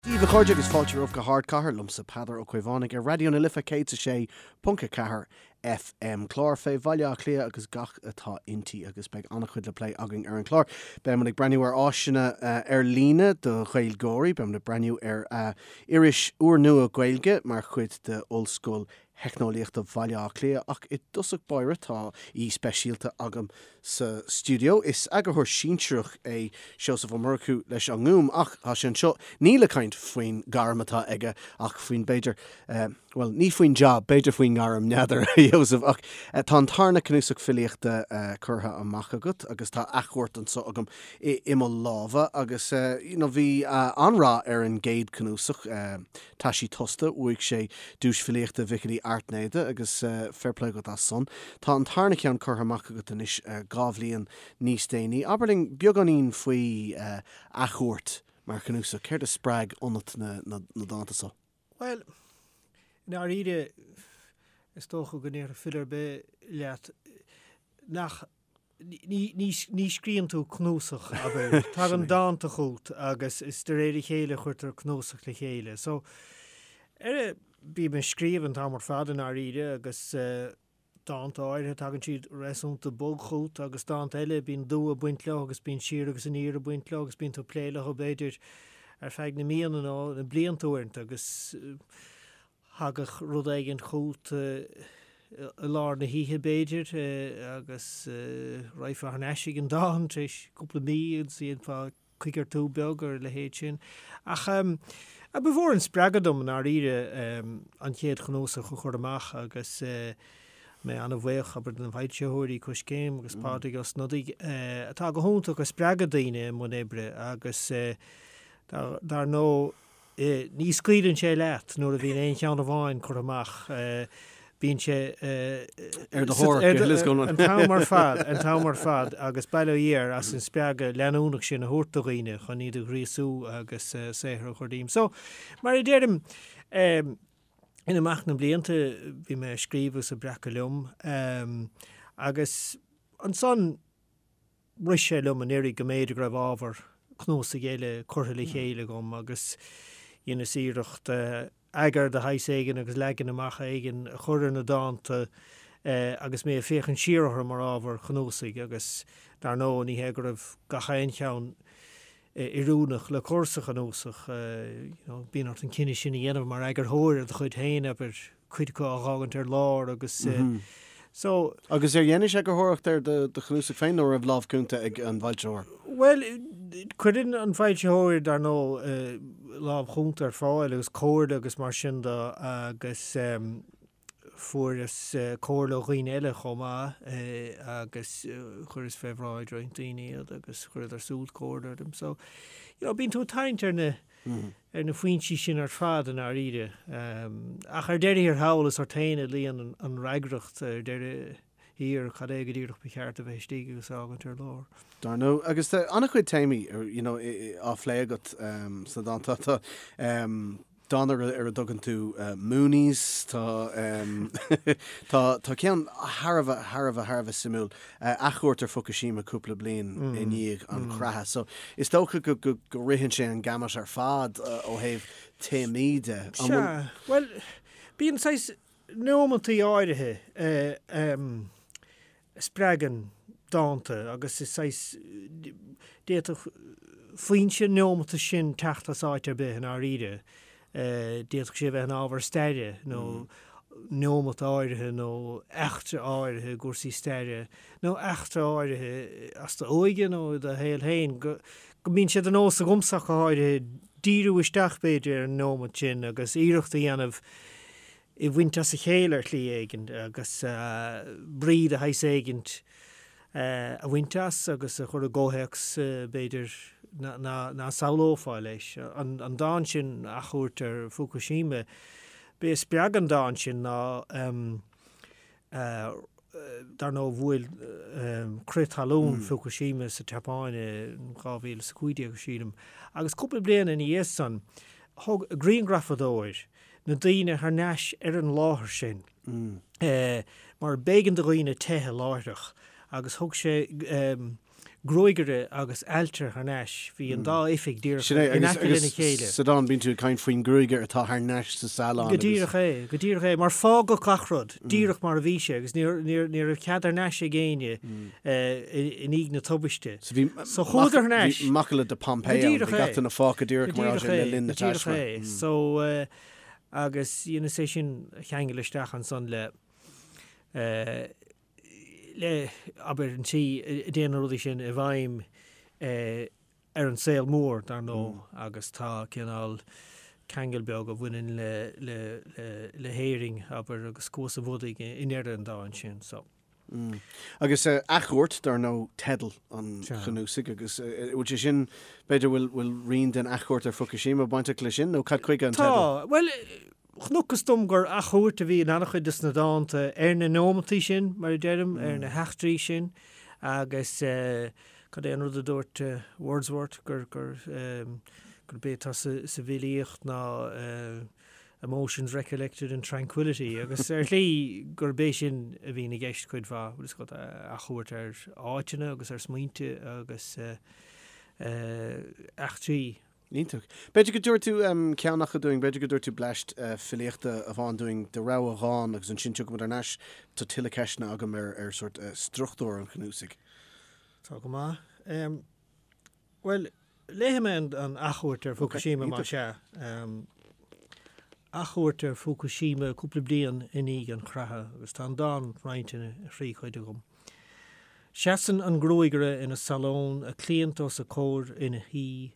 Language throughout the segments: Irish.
Dia daoibh a chairde agus fáilte romhaibh go hArdchathair, liomsa Peadar Ó Caomhánaigh ar Raidió na Life 106.4 FM. Clár fé Bhaile Átha Cliath agus gach atá inti agus beidh an-chuid le plé againn ar an chlár. Beidh muid ag breathnú ar áiseanna ar líne do Ghaeilgeoirí, beidh muid ag breathnú ar iris úrnua Gaeilge mar chuid de Ollscoil Theicneolaíochta Bhaile Átha Cliath ach i dtosach báire tá aoi speisialta agam sa stiúideo. Is eagarthóir sinsearach é Seosamh Ó Murchú leis an nGúm ach tá sé anseo ní le caint faoin gairm atá aige ach faoin b'fhéidir, bhuel ní faoin jab, b'fhéidir faoin ngairm, n'fheadar a Sheosaimh ach tá an tarna cnuasach filíochta curtha amach agat agus tá Athchuairt anseo agam i mo lámha agus you know bhí an-rath ar an gcéad cnuasach, Taisí Tosta, bhuaigh sé Duais Filíochta Mhicil Uí Airtnéide agus fair play dhuit as san. Tá an tarna ceann curtha amach agat anois 2 bhliain níos déanaí. Abair linn beagáinín faoi Athchuairt mar chnuasach. Céard a spreag ionat na dánta so? Bhuel, i ndáiríre, is dócha go ndéarfadh file ar bith leat nach Ní scríobhann tú cnuasach, abair. Tagann dánta chugat agus is de réir a chéile a chuirtear cnuasach le chéile. So, ar, bím ag scríobh an t-am ar fad i ndáiríre agus dánta áirithe tagann siad réasúnta bog chugat agus dánta eile bíonn dua ag baint leo agus bíonn siar agus aniar ag baint leo agus bíonn tú ag plé leo b'fhéidir ar feadh na míonna nó na blianta uaireanta agus Thagadh rud éigin chugat i lár na hoíche, b'fhéidir, agus raghfá thar n-ais ag an dán tar éis cúpla mí agus dhéanfá coigeartú beag ar a leithéid sin. Ach ba mhór an spreagadh dom, i ndáiríre, an chéad chnuasach a chur amach agus mé an-bhuíoch, abair, de na foilsitheoirí, Coiscéim agus Pádraig Ó Snodaigh, atá go hiontach ag spreagadh daoine i mbun oibre agus dar ndóigh, Ní scaoileann sé leat nuair a bhíonn aon cheann amháin curtha amach, bíonn sé ar do thóir go huile is go hiomlán. An t-am ar fad, an t-am ar fad agus bail ó Dhia air as an spreagadh leanúnach sin a thabhairt do dhaoine chun iad a ghríosú agus saothar a chur díobh. So, mar a deirim, in imeacht na mblianta bhí mé ag scríobh agus ag breacadh liom agus ansan, Rith sé liom anuraidh go mb'fhéidir go raibh ábhar cnuasaigh eile curtha le chéile agam agus dheineas iarracht eagar de shaghas éigin agus leagan amach éigin a chur ar na dánta agus mé ag féachaint siar orthu mar ábhar cnuasaigh agus dar ndóigh ní hé go raibh gach aon cheann oiriúnach le cur sa chnuasach. Bíonn ort an cinneadh sin a dhéanamh mar eagarthóir ar do chuid féin, abair, cuid acu a dh'fhágaint ar lár agus so. Agus ar dheinis eagarthóireacht ar do chnuasach féin nó raibh lámh cúnta ag an bhfoilsitheoir? Bhuel, cuireann an foilsitheoir, dar ndóigh, lámh chúnta ar fáil agus comhairle agus mar sin de agus Fuaireas comhairle ó dhaoine eile chomh maith agus chuireas fé bhráid roinnt daoine iad agus chuireadar súd comhairle orm. So, you know, bíonn tú ag tarraingt ar na ar na foinsí sin ar fad i ndáiríre. Ach ar deireadh thiar thall is ort féin a luíonn an fhreagracht ar deireadh thiar cad é go díreach ba cheart a bheith istigh agus a fhágaint ar lár. Dar ndóigh. Agus tá an-chuid téamaí, you know, á phlé agat sna dánta. Tá Dán ar a dtugann tú Moonies, tá tá tá ceann thar a bheith, thar a bheith, thar a bheith suimiúil, athchuairt ar Fukushima cúpla bliain i ndiaidh an chreatha. So is dócha go go go ritheann sé an gamut ar fad ó thaobh téamaí de. Sea, bhuel, bíonn saghas nóimeantaí áirithe a spreagann dánta agus is saghas, d'fhéadfadh foinse an neomata sin teacht as áit ar bith i ndáiríre. D'fhéadfadh sé a bheith ina ábhar staire nó neomat áirithe nó eachtra áirithe i gcúrsaí staire nó eachtra áirithe as d'óige nó i do shaol féin go mbíonn sé de nós agamsa ach go háirithe díriú isteach b'fhéidir ar an neomat sin agus iarracht a dhéanamh é a bhaint as a chéile ar shlí éigin agus brí de shaghas éigin a bhaint as agus a chur i gcomhthéacs, b'fhéidir, ná samhlófá leis. An dán sin, Athchuairt ar Fukushima, b'é a spreag an dán sin ná, dar ndóigh, bhuail crith talún Fukushima sa tSeapáin in 2015, sílim, agus cúpla bliain ina dhiaidh san, thug grianghrafadóir na daoine thar n-ais ar an láthair sin mar b'éigean do dhaoine teitheadh láithreach agus thug sé. gruagaire agus ailtire thar n-ais, bhí an dá oifig díreach Sin é, in agus, aice lena agus chéile. sa dán bíonn tú ag caint faoin ngruagaire atá thar n-ais sa salon Go agus. díreach é, go díreach é, mar fágadh gach rud díreach mar a bhí sé agus níor, níor, ní raibh cead thar n-ais ag éinne i ndiaidh na tubaiste. So bhí So chuadar thar n-ais. bhí macalla de Pompeii Go ann, díreach bhí é. gach duine fágtha díreach Go mar a díreach sé le é, linn na go díreach taisme. é. So, agus dheineas é sin a cheangal isteach ansan le, le, abair, an tslí a dtéann na rudaí sin i bhfeidhm ar an saol mór, dar ndóigh, agus tá cineál ceangal beag a bhaineann le, le, le, le hÉirinn, abair, agus Cuas an Bhodaigh i ndeireadh an dáin sin. So. Agus Athchuairt, dar ndóigh, teideal an chnuasaigh, agus bhfuil sé sin, b'fhéidir, bhfuil, bhfuil rian den athchuairt ar Fukushima bainteach leis sin, nó cad chuige an teideal? Tá. Bhuel, Chonacthas dom gur athchuairt a bhí in an-chuid de na dánta ar na nóimeantaí sin, mar a deirim, ar na heachtraí sin agus cad é an rud a dúirt Wordsworth gur gurb é atá sa bhfilíocht ná emotions recollected in tranquillity agus ar shlí gurb é sin a bhíonn i gceist cuid mhaith, bhfuil fhios agat, athchuairt ar áiteanna agus ar smaointe agus eachtraí. Iontach. B'fhéidir go dtabharfaidh tú ceann acu dúinn, b'fhéidir go dtabharfaidh tú bleaist filíochta amháin dúinn de rogha dhán agus ansin tiocfaidh muid thar n-ais. Tá tuilleadh ceisteanna agam ar ar sórt struchtúr an chnuasaigh. Tá go maith. Bhuel, léifidh mé an athchuairt ar Fukushima más ea. Athchuairt ar Fukushima cúpla bliain i ndiaidh an chreatha agus tá an dán roinnte ina thrí chuid agam. Seasann an gruagaire ina salón, a cliant os a comhair ina shuí,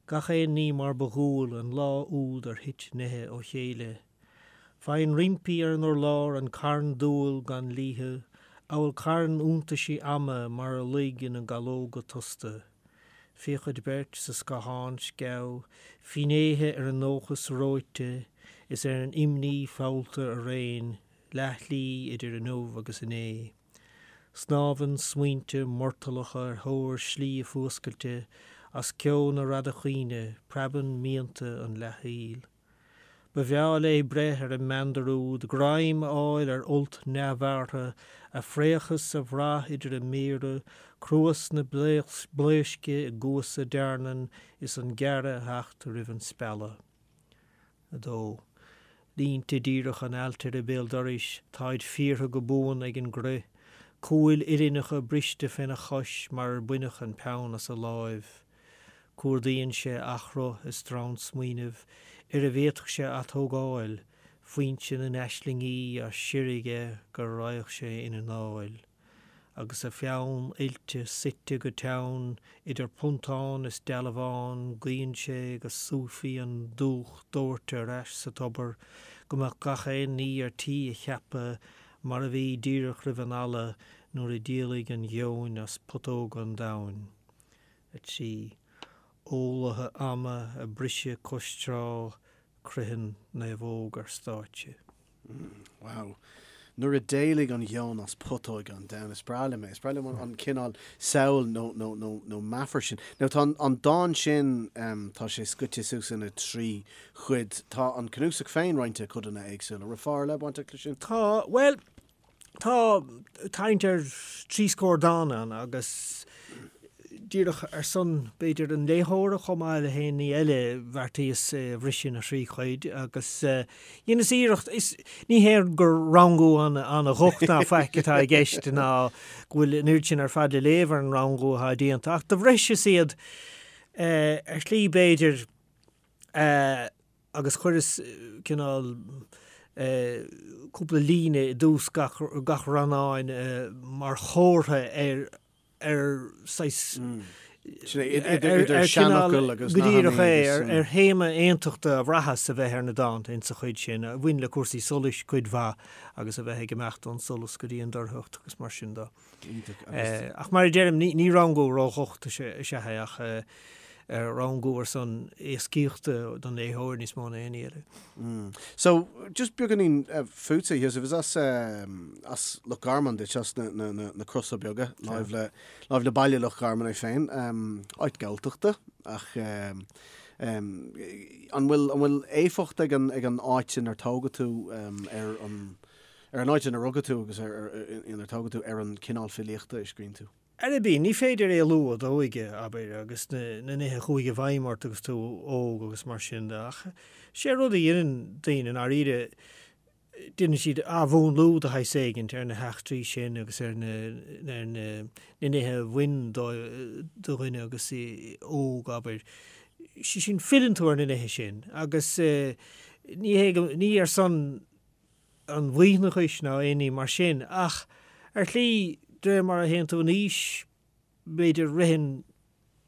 gach aon ní mar ba dhual an lá úd ar thit nithe ó chéile. Faigheann roimpi ar an urlár an carn dual gan liathadh, amhail carn iontaisí ama mar a luigh ina gcalóga tosta. Féachaid beirt sa scáthán sceamh, finnéithe ar an ndóchas reoite is ar an imní feallta araon, leathshlí idir inniu agus inné. Snámhann smaointe murtallacha ar thóir slí a fuascailte as ceo na radacaoine, preabann mianta an leathshaoil. Ba bhreá léi breith ar an meandar úd, greim a fháil ar fholt neamhbhearrtha, a phréachas a bhrath idir a méara, cruas na blaoisce i gcuasa dearnan is an gearradh a theacht roimh an spealadh. 2. Línte díreacha an ailtire béal dorais, táid fíortha go buan ag an gcrith, cúil uillinneacha briste féna chois mar ar baineadh an peann as a láimh. Cuardaíonn sé athchruth i stronn smaoinimh ar a bhféadfadh sé atógáil, foinse na n-aislingí á sireadh aige go raghadh sé ina anáil. agus a pheann oilte suite go teann idir phuntán is dealbhán, guíonn sé go súfaí an dúch dóite ar ais sa tobar, go mbeadh gach aon ní ar tí a cheapadh mar a bhí díreach roimh an ala nuair a d'éalaigh an gheoin as putóga an domhain. 3. Eolaithe ama a briseadh cois trá Croitheann naomhóg ar stáitse. Wow. Nuair a d'éalaigh an gheoin as putóga an domhain. Is breá liom é. Is breá liom an cineál samhail nó, nó, nó, nó meafar sin. Now tá an, an dán sin, tá sé scoite suas ina thrí chuid. Tá an cnuasach féin roinnte i codanna éagsúla. Raibh fáth ar leith bainteach leis sin? Tá, bhuel, Tá tarraingt ar thrí scór dán ann agus díreach ar son, b'fhéidir, an léitheora chomh maith le haon ní eile, bheartaíos é a bhriseadh ina thrí chuid agus dheineas iarracht, is ní hé gur rangú an-dhocht ná faic atá i gceist ná go bhfuil an oiread sin ar fad le léamh ar an rangú atá déanta ach do bhriseas iad ar shlí b'fhéidir agus chuireas cineál cúpla líne i dtús gach gach rannáin mar chomhartha ar ar saghas Sin é, idir idir seanfhocail agus go díreach nathanna é, agus. ar théama aontachta a bhraitheas a bheith ar na dánta insa chuid sin, a bhain le cúrsaí solais cuid mhaith agus a bheith ag imeacht ón solas go dtí an dorchacht agus mar sin de. Iontach agus. Ach mar a deirim, ní rangú ródhocht is ea é ach rangú ar son éascaíochta don léitheoir níos mó ná aon ní eile. So, just beagáinín fútsa, a Sheosaimh, is as as Loch Garman duit, as na na na na Crosa Beaga, láimh le láimh le baile Loch Garman é féin, áit Galltachta ach an bhfuil an bhfuil éifeacht ag an ag an áit inar tógadh tú ar an Ar an áit inar rugadh tú agus inar tógadh tú, ar an cineál filíochta a scríonn tú? Ar bith, ní féidir éalú ó d'óige, abair, agus na nithe a chuaigh i bhfeidhm ort agus tú óg agus mar sin de, ach sé rud a dheineann daoine, i ndáiríre, déanann siad athmhúnlú de shaghas éigint ar na heachtraí sin agus ar na ar na nithe a bhain do dhuine agus é óg, abair. Sé sin, filleann tú ar na nithe sin agus ní hé go, ní ar son an mhaoithneachais ná aon ní mar sin, ach ar shlí, de réir mar a théann tú in aois, b'fhéidir, ritheann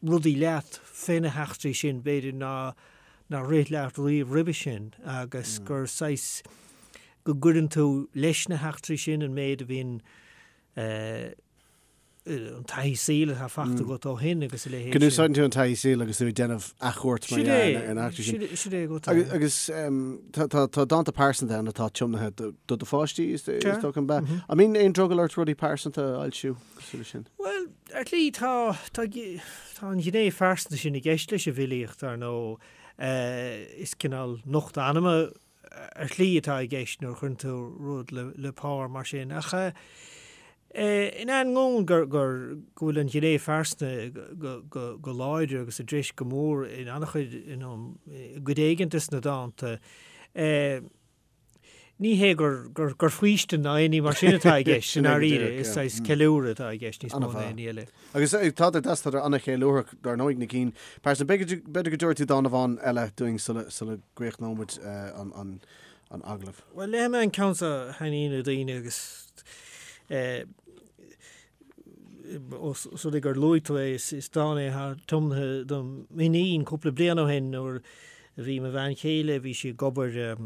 rudaí leat fé na heachtraí sin, b'fhéidir, ná nár rith leat riamh roimhe sin, agus gur saghas, go gcuireann tú leis na heachtraí sin an méid a bhíonn an taithí saoil atá fachta agat ó shin agus a leithéid sin. Go n-úsáideann tú an taithí saoil agus tú ag déanamh athchuairt mar dhea ar na heachtraí sin. Sin é go Agus agus tá tá dánta pearsanta ann atá tiomnaithe do do do pháistí is dócha an bea. An mbíonn aon drogall ort rudaí pearsanta a fhoilsiú cosúil leis sin? Bhuel, ar shlí tá tá tá an ghné phearsanta sin i gceist leis an bhfilíocht, ar ndóigh. Is cineál nochtadh anama ar shlí atá i gceist nuair a chuireann tú rud le pár mar sin. Ach in ainneoin gur go bhfuil an ghné phearsanta go láidir agus i dtreis go mór in an-chuid, i gcuid éigin de na dánta, ní hé gur faoistin ná aon ní mar sin atá i gceist, i ndáiríre, is saghas ceiliúradh atá i gceist níos mó ná aon ní eile. Agus tádar deas, tádar an-cheiliúrthach, dar ndóigh, na cinn pearsanta. B'fhéidir go dtabharfaidh tú dán amháin eile dúinn sula gcríochnóidh muid an agallamh. Bhuel, léifidh mé an ceann seo a thaitníonn le daoine agus ós rud é gur luaigh tú é, is dán é atá tiomnaithe do m'iníon cúpla bliain ó shin nuair a bhí mo bhean chéile, bhí sí ag obair,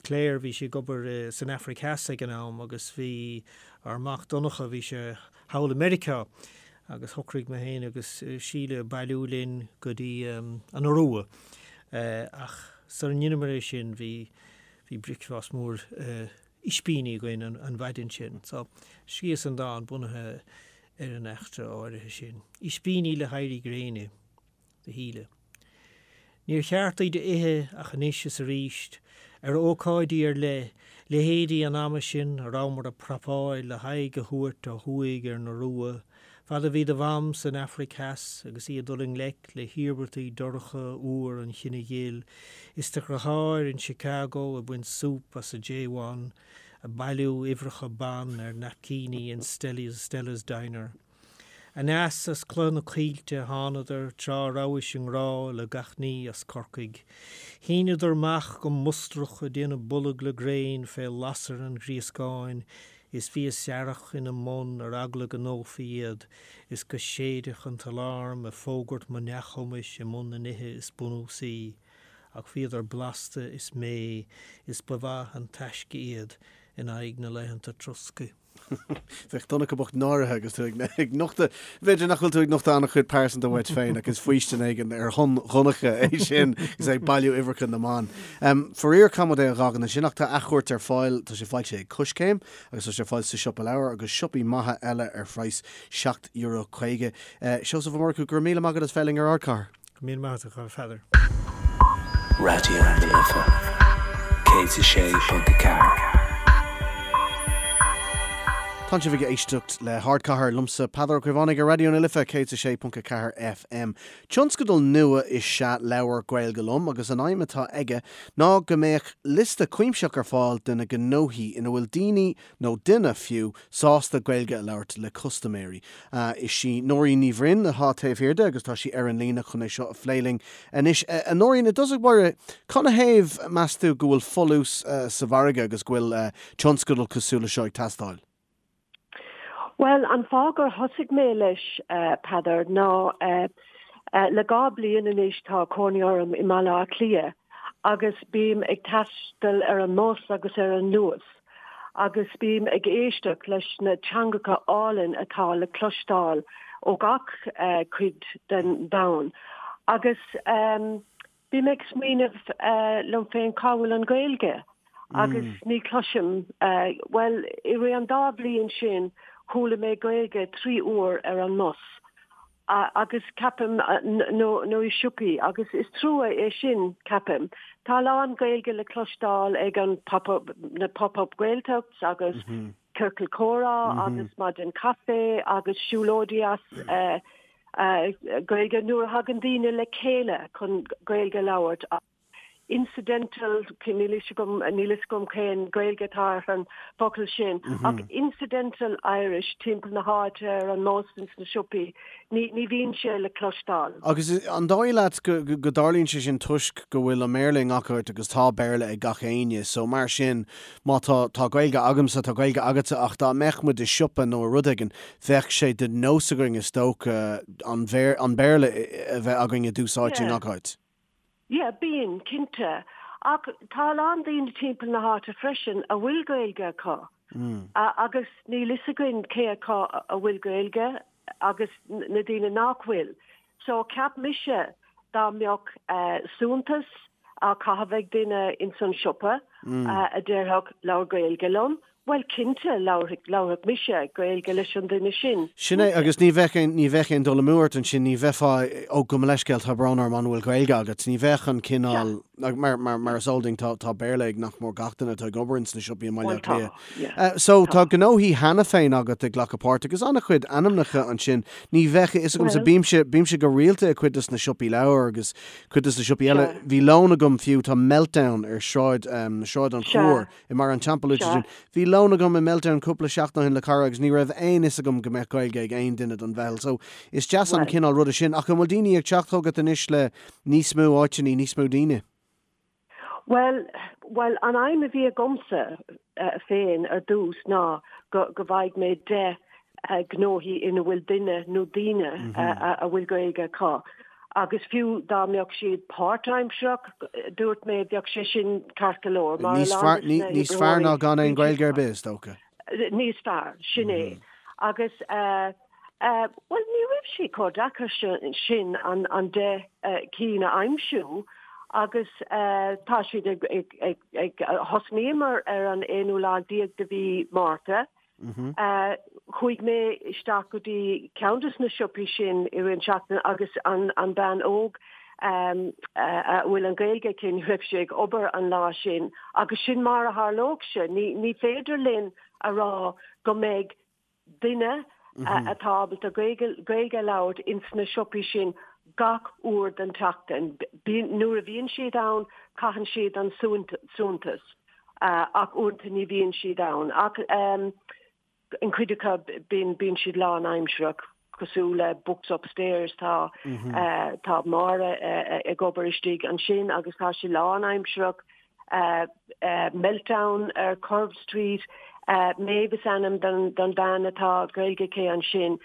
Claire, bhí sí ag obair san Afraic Theas ag an am agus bhí ár mac Donncha, bhí sé thall i Meiriceá agus shocraigh mé féin agus Síle bailiú linn go dtí an Iorua ach sara ndeineamar é sin bhí bhí bricfeasta mór ispíní againn an mhaidin sin. So scríobhas an dán bunaithe ar an eachtra áirithe sin. Ispíní le héirí gréine. do Shíle. Níor cheart iad a ithe ach anois is arís, ar ócáidí ar leith, leithéidí an ama sin a rabhamar ag prapáil le haghaidh a thabhairt ó thuaidh ar an Iorua, fad a bhí do mham san Afraic Theas agus í ag dul i ngleic le hiarmhairtí dorcha uabhar an chine ghil, is do dheartháir in Chicago ag baint súp as a J1, ag bailiú uimhreacha ban ar naipcíní in Stella's Diner. Aneas as Cloich na Coillte a thánadar tráth a rabhais i ngrá le gach ní as Corcaigh. Shíneadar amach go mustrach ag déanamh bolg le gréin fé lasair an ghríoscáin is bhí a searrach ina mbun ar eagla go ndófaí iad is go séidfeadh an t-alarm ag fógairt mo neamhchumais i mbun na nithe is bunúsaí. Ach bhíodar blasta is méith is ba mhaith an taisce iad in aghaidh na laethanta troscaidh. Bheadh Donncha bocht náirithe agus tú ag nochtadh, b'fhéidir nach bhfuil tú ag nochtadh an-chuid pearsanta uait féin ach is faoistin éigin ar shon Dhonncha é sin agus é ag bailiú uimhreacha na mban. Faraor caithfidh muid é a dh'fhágaint ansin ach tá Athchuairt ar fáil, tá sé foilsithe ag Coiscéim agus tá sé ar fáil sa siopa leabhar agus siopaí maithe eile ar phraghas €7.50. Seosamh Ó Murchú, go raibh míle maith agat as bheith linn ar Ardchathair. Go míle maith agat, a Pheadair. Raidió na Life 106.4. Tá sibh ag éisteacht le hArdchathair liomsa Peadar Ó Caomhánaigh ar Raidió na Life 106.4 FM. Tionscadal nua is ea Labhair Gaeilge Liom agus an aidhm atá aige ná go mbeadh liosta cuimsitheach ar fáil de na gnóthaí ina bhfuil daoine nó duine fiú, sásta Gaeilge a labhairt le custaiméirí. Is í Nóirín Ní Bhroin atá taobh thiar de agus tá sí ar an líne chun é seo a phlé linn anois. A Nóirín, i dtosach báire, canathaobh, meas tú, go bhfuil folús sa mhargadh agus go bhfuil tionscadal cosúil le seo ag teastáil? Bhuel, an fáth gur thosaigh mé leis, Peadar, ná le 2 bliain anois tá cónaí orm i mBaile Átha Cliath agus bím ag taisteal ar an mbus agus ar an Luas. agus bím ag éisteacht leis na teangacha álainn atá le cloisteáil ó gach cuid den domhan agus bím ag smaoineamh liom féin cá bhfuil an Ghaeilge agus ní chloisim, bhuel i rith an dá bhliain sin chuala mé Gaeilge 3 uair ar an mbus. agus ceapaim, nó nó i siopaí, agus is trua é sin, ceapaim. Tá a lán Gaeilge le cloisteáil ag an pop up, na pop up Gaeltachts agus. ciorcal comhrá agus maidin caife agus siúlóidí as Gaeilge nuair a thagann daoine le chéile chun Gaeilge a labhairt. Incidental, níl fhios agam, níl fhios agam cén Gaeilge atá ar an bhfocal sin, ach incidental Irish timpeall na háite ar an mbus ins na siopaí, ní, ní bhíonn sé le cloisteáil. Agus an dóigh leat go, go dtarlaíonn sé sin toisc go bhfuil an mBéarla i ngach áit agus tá Béarla ag gach éinne, so mar sin má tá, tá Gaeilge agamsa, tá Gaeilge agatsa ach dá mbeadh muid i siopa nó i rud éigin, bheadh sé de nós againn is dócha an, an Béarla a bheith againn i dtús áite i ngach áit. Yeah, bíonn, cinnte. Ach tá a lán daoine timpeall na háite freisin a bhfuil Gaeilge acu. Agus níl fhios againn cé acu a bhfuil Gaeilge agus na daoine nach bhfuil. So cheap mise dá mbeadh suaitheantas á chaitheamh ag duine ins an siopa a déarfadh labhair Gaeilge liom, Bhuel, cinnte, labharfadh mise Gaeilge leis an duine sin. Sin é, agus ní bheadh aon, ní bheadh aon dul amú ort ansin, ní bheifeá, ó, gabh mo leithscéal, tá brón orm, an bhfuil Gaeilge agat? Ní bheadh an cineál, mar, mar, mar is eol dúinn, tá, tá Béarla ag nach mór gach duine atá ag obair ins na siopaí i mBaile Átha Cliath. Bhuel tá, So, tá gnóthaí cheana féin agat ag glacadh páirt agus an-chuid ainmneacha ansin. Ní bheadh a fhios agamsa, bímse, bímse go rialta i cuid des na siopaí leabhar agus cuid des na siopaí eile. Bhí lón agam fiú, tá Meltdown ar Sráid, Sráid an Chúir. I mBarr an Teampaill luaite sin. Bhí lón agam i Meltdown cúpla seachtain ó shin le cara agus ní raibh aon fhios agam go mbeadh Gaeilge ag aon duine don mheitheal. So, is deas an cineál ruda sin. Ach an bhfuil daoine ag teacht chugat anois le níos mó áiteanna, níos mó daoine? Bhuel, bhuel, an aidhm a bhí agamsa féin ar dtús ná go, go bhfaighidh mé 10 gnóthaí ina bhfuil duine nó daoine a bhfuil Gaeilge acu. Agus fiú dá mbeadh siad páirtaimsearach, dúirt mé, bheadh sé sin ceart go leor, mar a lán de na Níos fearr ná gan aon Ghaeilge ar bith, is dócha. Níos fearr, sin é. Agus, bhuel, ní raibh sé chomh deacair sin an 10 cinn a aimsiú agus tá siad ag, ag, ag, thosnaíomar ar an aonú lá déag de mhí Márta Chuaigh mé isteach go dtí ceann de na siopaí sin i rith an tseachtain agus an bean óg a bhfuil an Ghaeilge aici, ní raibh sí ag obair an lá sin agus sin mar a tharlódh sé. Ní féidir linn a rá go mbeidh duine atá ábalta Gaeilge a labhairt ins na siopaí sin gach uair den tseachtain. Nuair a bhíonn siad ann, caitheann siad an suaitheantas. Ach uaireanta ní bhíonn siad ann. Ach an chuid acu bíonn bíonn siad lánaimsearach, cosúil le Books Upstairs, tá tá Máire ag obair istigh ansin agus tá sí lánaimsearach. Meltdown ar Curve Street, Maeve is ainm don don bhean atá Gaeilge aici ansin.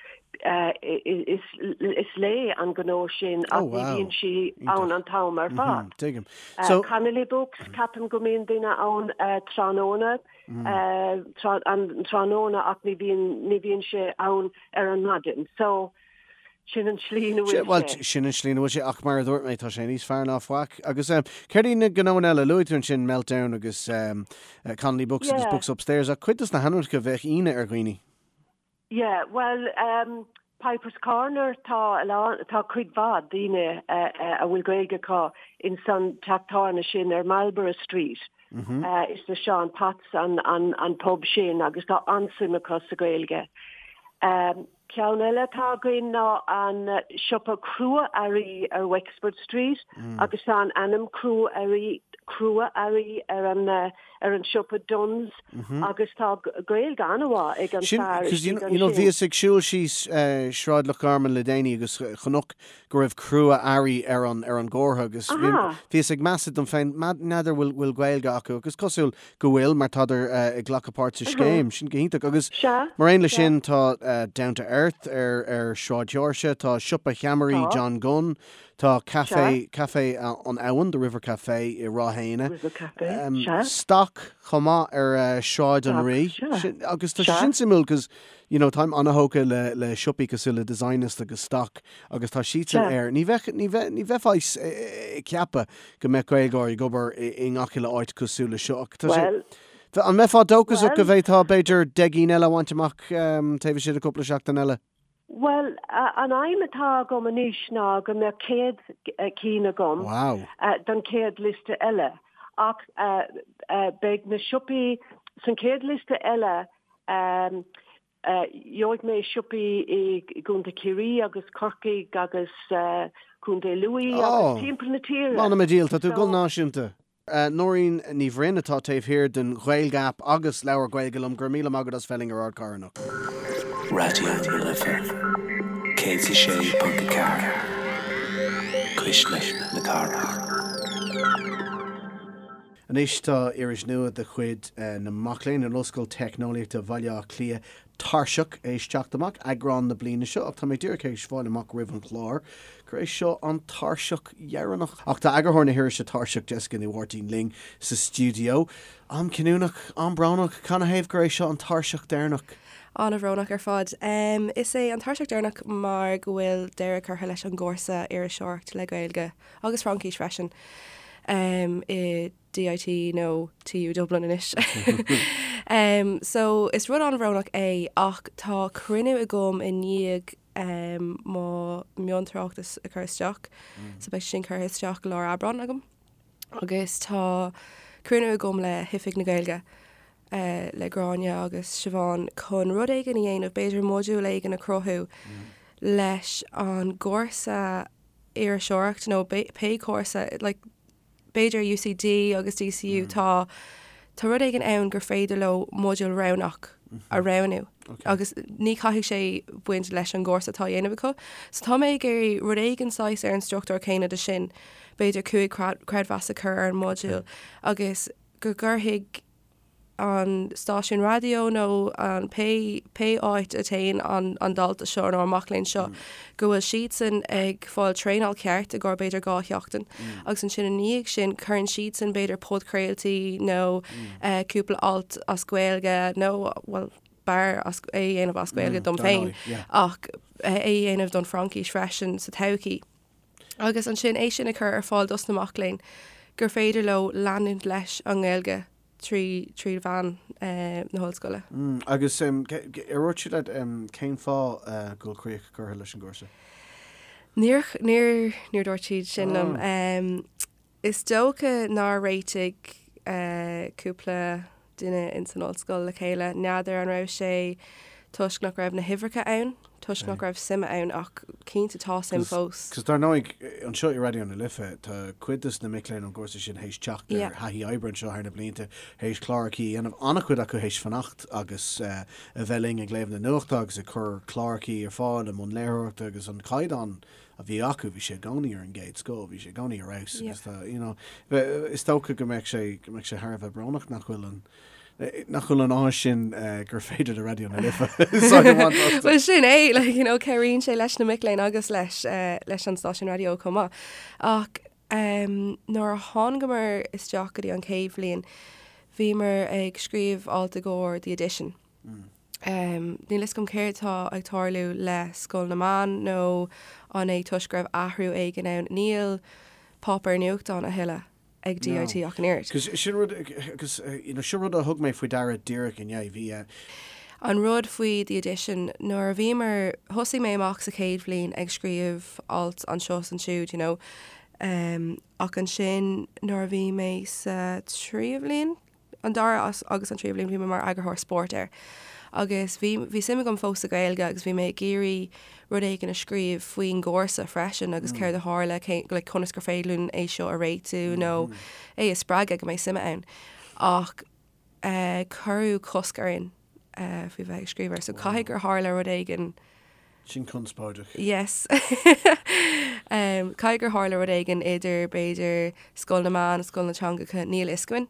Is léi an gnó sin ach ní bhíonn sí ann an t-am ar fad. Tuigim. Connolly Books, ceapaim go mbíonn duine ann tráthnóna, an tráthnóna ach ní bhíonn, ní bhíonn sé ann ar an maidin. So, sin an tslí ina bhfuil Bhuel, sé. sin an tslí ina bhfuil sé ach mar a dúirt mé, tá sé níos fearr ná faic. Agus céard iad na gnóanna eile? Luaigh tú ansin Meltdown agus Connolly Books agus Books Upstairs ach cuid dos na hainmneacha bheadh ionadh ar dhaoine. Yeah, bhuel, Piper's Corner, tá a lán, tá cuid mhaith daoine a bhfuil Gaeilge acu ins an teach tábhairne sin ar Marlborough Street. Is le Seán Potts an, an, an pub sin agus tá an-suim acu sa Ghaeilge. Ceann eile atá againn ná an siopa crua-earraí ar Wexford Street agus tá an ainm crua-earraí, crua-earraí ar an, ar an siopa Dunnes agus tá Gaeilge an-mhaith ag an Sin, fear cos you istigh you know ansin. bhíos ag siúl síos Sráid Loch Garman le déanaí agus chonac go raibh crua-earraí ar an ar an gcomhartha agus bhí Aha. bhíos ag meas dom féin n'fheadar bhfuil bhfuil Gaeilge acu agus cosúil go bhfuil mar tádar ag glacadh páirt sa scéim. Sin go hiontach agus Sea, mar aon le sea. sin tá Down to Earth ar ar Sráid Sheoirse, tá siopa cheamaraí Tá. John Gunn, Tá Sea. Café, Café an Abhann, The River Café i Ráth Éanna. River Café, sea. Stoc chomh maith ar Sráid an Stoc, Rí. sea. Sin, agus tá sé Sea. sin suimiúil cos, you know, táim an-thógtha le, le siopaí cosúil le Designist agus Stoc agus tá siadsan Sea. ar, ní bheadh, ní bheith, ní bheifeá ag ceapadh go mbeadh Gaeilgeoirí ag obair i, i ngach uile áit cosúil le seo ach tá sé, Bhuel, an mbeifeá dóchasach go bhuel. bhféadfá b'fhéidir 10 gcinn eile a bhaint amach taobh istigh de cúpla seachtain eile? Bhuel, an aidhm atá agam anois ná go mbeadh 100 cinn agam Wow. don chéad liosta eile. Ach beidh na siopaí san chéad liosta eile. Gheobhaidh mé siopaí i gContae Chiarraí agus Corcaigh agus Contae Lú agus timpeall na tíre. M'anam a dhíol, tá tú ag dul náisiúnta. Nóirín Ní Bhroin atá taobh thiar den Ghaeilge App agus Labhair Gaeilge Liom. Go raibh míle maith agat as bheith linn ar Ardchathair anocht. Raidió na Life 106.4, Cuisle na Cathrach. Anois tá iris nua de chuid na mac léinn in Ollscoil Teicneolaíochta Bhaile Átha Cliath, Tairseach, théis teacht amach, eagrán na bliana seo, ach tá mé díreach théis fáil amach roimh an chlár gur é seo an Tairseach dheireanach. Ach tá eagarthóir na hirise Tairseach, Jessica Ní Mháirtín, linn sa stiúideo. Am cinniúnach, am brónach, canathaobh gur é seo an Tairseach deireanach? An-bhrónach ar fad. Is é an Tairseach deireanach mar go bhfuil deireadh curtha leis an gcúrsa Iriseoireacht le Gaeilge. agus Fraincis freisin, i DIT nó TU Dublin anois. So, is rud an-bhrónach é ach tá cruinniú agam i ndiaidh mo mhiontráchtas a chur isteach, so beidh sin curtha isteach lár Aibreán agam agus tá cruinniú agam le hOifig na Gaeilge, le Gráinne agus Siobhán chun rud éigin a dhéanamh, b'fhéidir modúl éigin a chruthú leis an gcúrsa iriseoireacht nó pé cúrsa, like, b'fhéidir UCD agus DCU, tá, tá rud éigin ann gur féidir leo modúl roghnach a roghnú agus ní chaithfidh sé baint leis an gcúrsa atá á dhéanamh acu. So tá mé ag iarraidh rud éigin saghas ar an struchtúr céanna de sin, b'fhéidir 5 creidmheas a chur ar an modúl agus go gcuirfidh an stáisiún raidió nó an pé pé áit a téann an an dalta seo nó an mac léinn seo go bhfuil siadsan ag fáil traenáil ceart i gcomhair b'fhéidir 2 sheachtain agus ansin i ndiaidh sin cuireann siadsan b'fhéidir podchraoltaí nó cúpla alt as Gaeilge nó bhuel b'fhearr as é a dhéanamh as Gaeilge dom féin ach é a dhéanamh don Fhraincis freisin sa todhchaí. Agus ansin é sin a chur ar fáil dos na mac léinn gur féidir leo leanúint leis an nGaeilge trí trí mheán na hollscoile. Agus ar dhúirt siad leat cén fáth go bhfuil críoch curtha leis an gcúrsa? Níor níor níor dúirt siad sin liom. Is dócha nár réitigh cúpla duine ins an ollscoil le chéile. N'fheadar an raibh sé toisc nach raibh na huimhreacha ann, toisc nach raibh suim ann ach cinnte tá suim fós. Cos dar ndóigh, anseo i Raidió na Life, tá cuid dos na mic léinn ón gcúrsa sin théis teacht ar thaithí oibre anseo thar na blianta, théis clárachaí a dhéanamh, an-chuid acu théis fanacht agus a bheith linn ag léamh na nuachta agus ag cur clárachaí ar fáil i mbun léitheoireachta agus an caighdeán a bhí acu, bhí sé i gcónaí ar an gcéad scoth, bhí sé i gcónaí ar fheabhas agus tá, you know, is dócha go mbeadh sé, go mbeadh sé thar a bheith brónach nach bhfuil an, nach bhfuil an áis sin gur féidir le Raidió na Life úsáid a bhaint astu. Bhuel sin é, like, you know, cabhraíonn sé leis na mic léinn agus leis, leis an stáisiún raidió chomh maith. Ach um, nuair a thángamar isteach go dtí an chéad bhliain, bhíomar ag scríobh alt i gcomhair The Edition. Níl fhios agam céard atá ag tarlú le Scoil na Meán nó an é toisc go raibh athrú éigin ann. Níl páipéar nuachtáin a thuilleadh ag DIT ach an oiread. Cos sin rud, agus you know, sin rud a thug mé faoi deara díreach inné. Bhí eh. An rud faoi The Edition, nuair a bhíomar, thosaigh mé amach sa chéad bhliain ag scríobh alt anseo is ansiúd, you know, ach ansin nuair a bhí mé sa tríú bhliain, an dara agus an tríú bliain bhí mé mar eagarthóir spóirt air agus bhí bhí suim agam fós sa Ghaeilge agus bhí mé ag iarraidh rud éigin a scríobh faoin gcúrsa freisin agus céard a tharla, cé like conas gur féidir linn é seo a réitiú nó é a spreagadh go mbeidh suim ann. Ach eh cuireadh cosc orainn eh faoi bheith ag scríobh air so caithfidh gur tharla rud éigin Sin conspóideach. Yes. Caithfidh gur tharla rud éigin idir, b'fhéidir, Scoil na Meán, Scoil na Teangacha, níl fhios againn,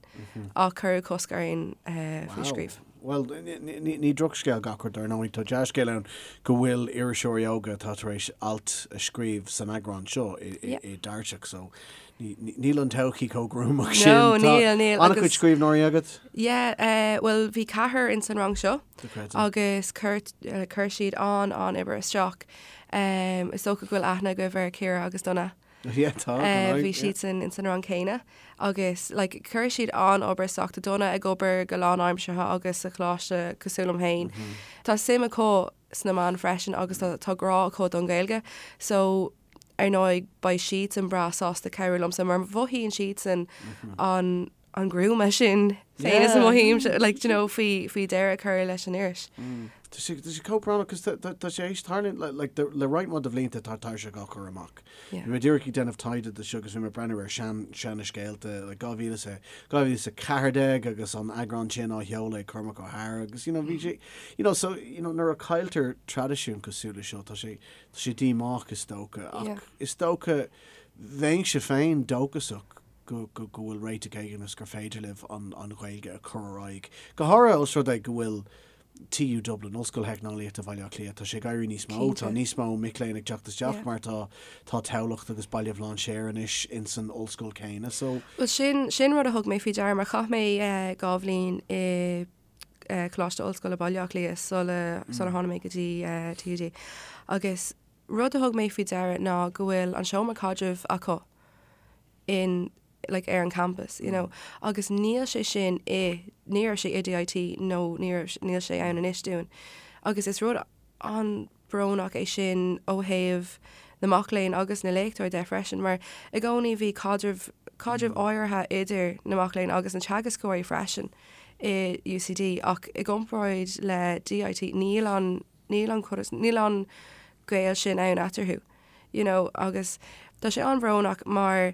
ach cuireadh cosc orainn faoi scríobh. Bhuel, ní drochscéal gach rud, dar ndóigh. Tá dea-scéal ann go bhfuil iriseoirí óga atá tar éis alt a scríobh san eagrán seo i dTairseach, so Níl an todhchaí chomh gruamach sin. No, níl, níl. An-chuid scríbhneoirí agat? Yeah, bhuel bhí ceathrar ins an rang seo agus chuir, chuir siad an, an-obair isteach. Is dócha go bhfuil aithne agaibh ar Ciara agus Donna. Yeah, tá, Bhí siadsan ins an rang céanna agus like chuir siad an-obair isteach. Tá Donna ag obair go lánaimseartha agus sa choláiste cosúil liom féin. Tá suim acu sna meáin freisin agus tá, tá grá acu don Ghaeilge. So ar ndóigh beidh siadsan breá sásta cabhrú liomsa mar mhothaíonn siadsan an an gruama sin. Féin is a mothaímse, like, do you know, faoi, faoi deireadh a chur leis an iris. Tá sé, tá sé chomh brónach cos tá, tá, tá sé théis tarlú, like, like, le roinnt mhaith de bhlianta tá Tairseach á cur amach. Yeah. Bhí mé díreach ag déanamh taighde do seo agus bhí mé ag breathnú ar sean, seana scéalta, like, 2014 agus an eagrán sin á sheoladh ag Cormac Ó hEadhra agus, you know, bhí sé, you know, so, you know, nuair a cailltear traidisiún cosúil le seo, tá sé, tá sé díomách is dócha ach Yeah. is dócha bheinnse féin dóchasach go go bhfuil réiteach éigin agus gur féidir libh an an Ghaeilge a chur ar aghaidh. Go háirithe os rud é go bhfuil TU Dublin, Ollscoil Theicneolaíochta Bhaile Átha Cliath, tá sé ag éirí níos mó, tá níos mó mic léinn ag teacht isteach mar tá tá Tamhlacht agus Baile Bhlainséir anois ins an ollscoil céanna so. Bhuel sin sin rud a thug mé faoi deara mar chaith mé 2 bhliain i Coláiste Ollscoile Baile Átha Cliath sula sular tháinig mé go dtí TUD agus rud a thug mé faoi deara ná go bhfuil an seomra caidrimh acu in like ar an campus you know agus níl sé sin i ní raibh sé i DIT nó ní raibh níl sé ann anois dúinn agus is rud an-bhrónach é sin ó thaobh na mac léinn agus na léachtóirí de freisin mar i gcónaí bhí caidreamh caidreamh áirithe idir na mac léinn agus na teagascóirí freisin i UCD ach i gcomparáid le DIT níl an níl an níl an gaol sin ann eatarthu. you know agus tá sé an-bhrónach mar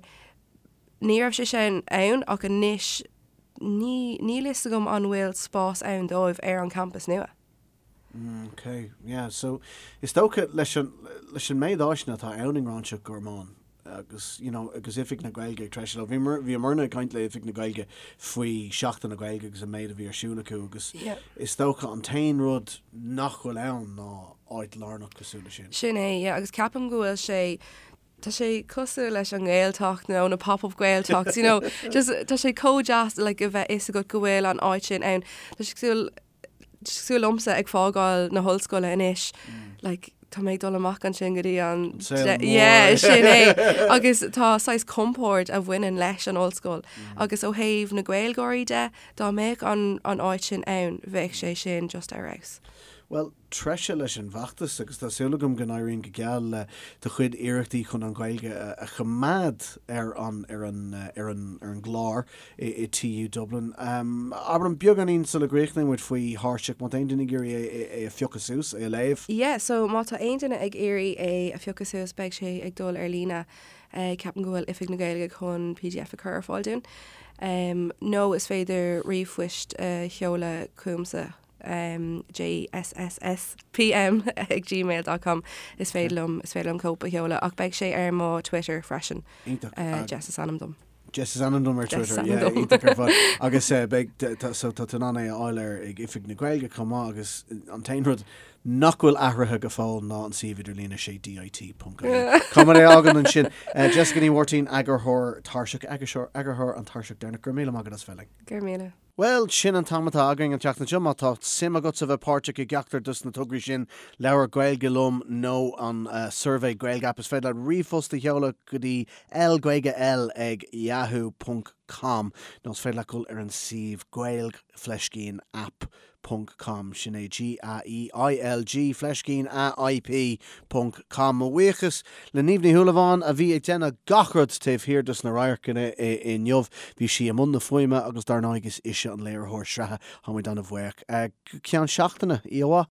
ní raibh sé sin ann ach anois ní níl fhios agam an bhfuil spás ann dóibh ar an campas nua. Mm, ok, yeah, so is dócha leis an leis an méid áiseanna atá ann i nGráinseach Gormáin agus you know agus Oifig na Gaeilge ag treisiú leo. Bhíomar bhíomarna ag caint le Oifig na Gaeilge faoi Seachtain na Gaeilge agus an méid a bhí ar siúl acu agus Yeah. is dócha an t-aon rud nach bhfuil ann ná áit lárnach cosúil leis sin. Sin é, yeah, agus ceapaim go bhfuil sé, tá sé cosúil leis an nGaeltacht nó na pop-up Gaeltachts, you know, just tá sé chomh deas like a bheith fhios agat go bhfuil an áit sin ann. Tá sé cosúil, tá sé cosúil liomsa ag fágáil na hollscoile anois, like tá mé ag dul amach ansin go dtí an An saol mór. Yeah, sin é. Agus tá saghas compord a bhaineann leis an ollscoil. Agus ó thaobh na Gaeilgeoirí de, dá mbeadh an an áit sin ann, bheadh sé sin just ar fheabhas. Bhuel, treise leis an bhfeachtas agus tá súil agam go n-éiríonn go geal le do chuid iarrachtaí chun an Ghaeilge a choimeád ar an ar an ar an ar an gclár i i TU Dublin. Abair liom beagáinín sula gcríochnaíonn muid faoi Thairseach, má tá aon duine ag iarraidh é é a phiocadh suas, é a léamh. Yeah, so má tá aon duine ag iarraidh é a phiocadh suas beidh sé ag dul ar líne. Ceapaim go bhfuil Oifig na Gaeilge chun pdf a chur ar fáil dúinn. Nó is féidir ríomhphoist a sheoladh chugamsa. jssspm ag gmail dot com Is féidir liom is féidir liom cóip a sheoladh ach beidh sé ar mo Twitter freisin. Iontach. Jess is ainm dom. Jess is ainm dom ar Jess Twitter, is ainm yeah, dom. iontach ar fad. Agus beidh tá so tá tú in ann é a fháil ar ag Oifig na Gaeilge chomh maith agus an t-aon rud nach bhfuil athraithe go fóill ná an suíomh idirlíne sé DIT ponc ie. Caithfidh muid é a fhágáil ansin. Jessica Ní Mháirtín, eagarthóir Tairseach, eagarthóir an Tairseach deireanach, go raibh míle maith agat as bheith linn. Go raibh míle. Bhuel, sin an t-am atá againn an tseachtain seo. Má tá suim agatsa bheith páirteach i gceachtar dos na tograí sin, Labhair Gaeilge Liom nó an suirbhé Gaeilge App, is féidir leat ríomhphost a sheoladh go dtí lgaeilgel ag yahoo ponc com nó is féidir leat dul ar an suíomh gaeilg fleiscín app ponc com. Sin é G-A-E-I-L-G fleiscín A-I-P ponc com. Mo bhuíochas le Niamh Ní Shúilleabháin a bhí ag déanamh gach rud taobh thiar dos na radharcanna inniu. Bhí sí i mbun na fuaime agus dar ndóigh is ise an léiritheoir sraithe. Tá muid ana-bhuíoch. Go ceann seachtaine, oíche mhaith.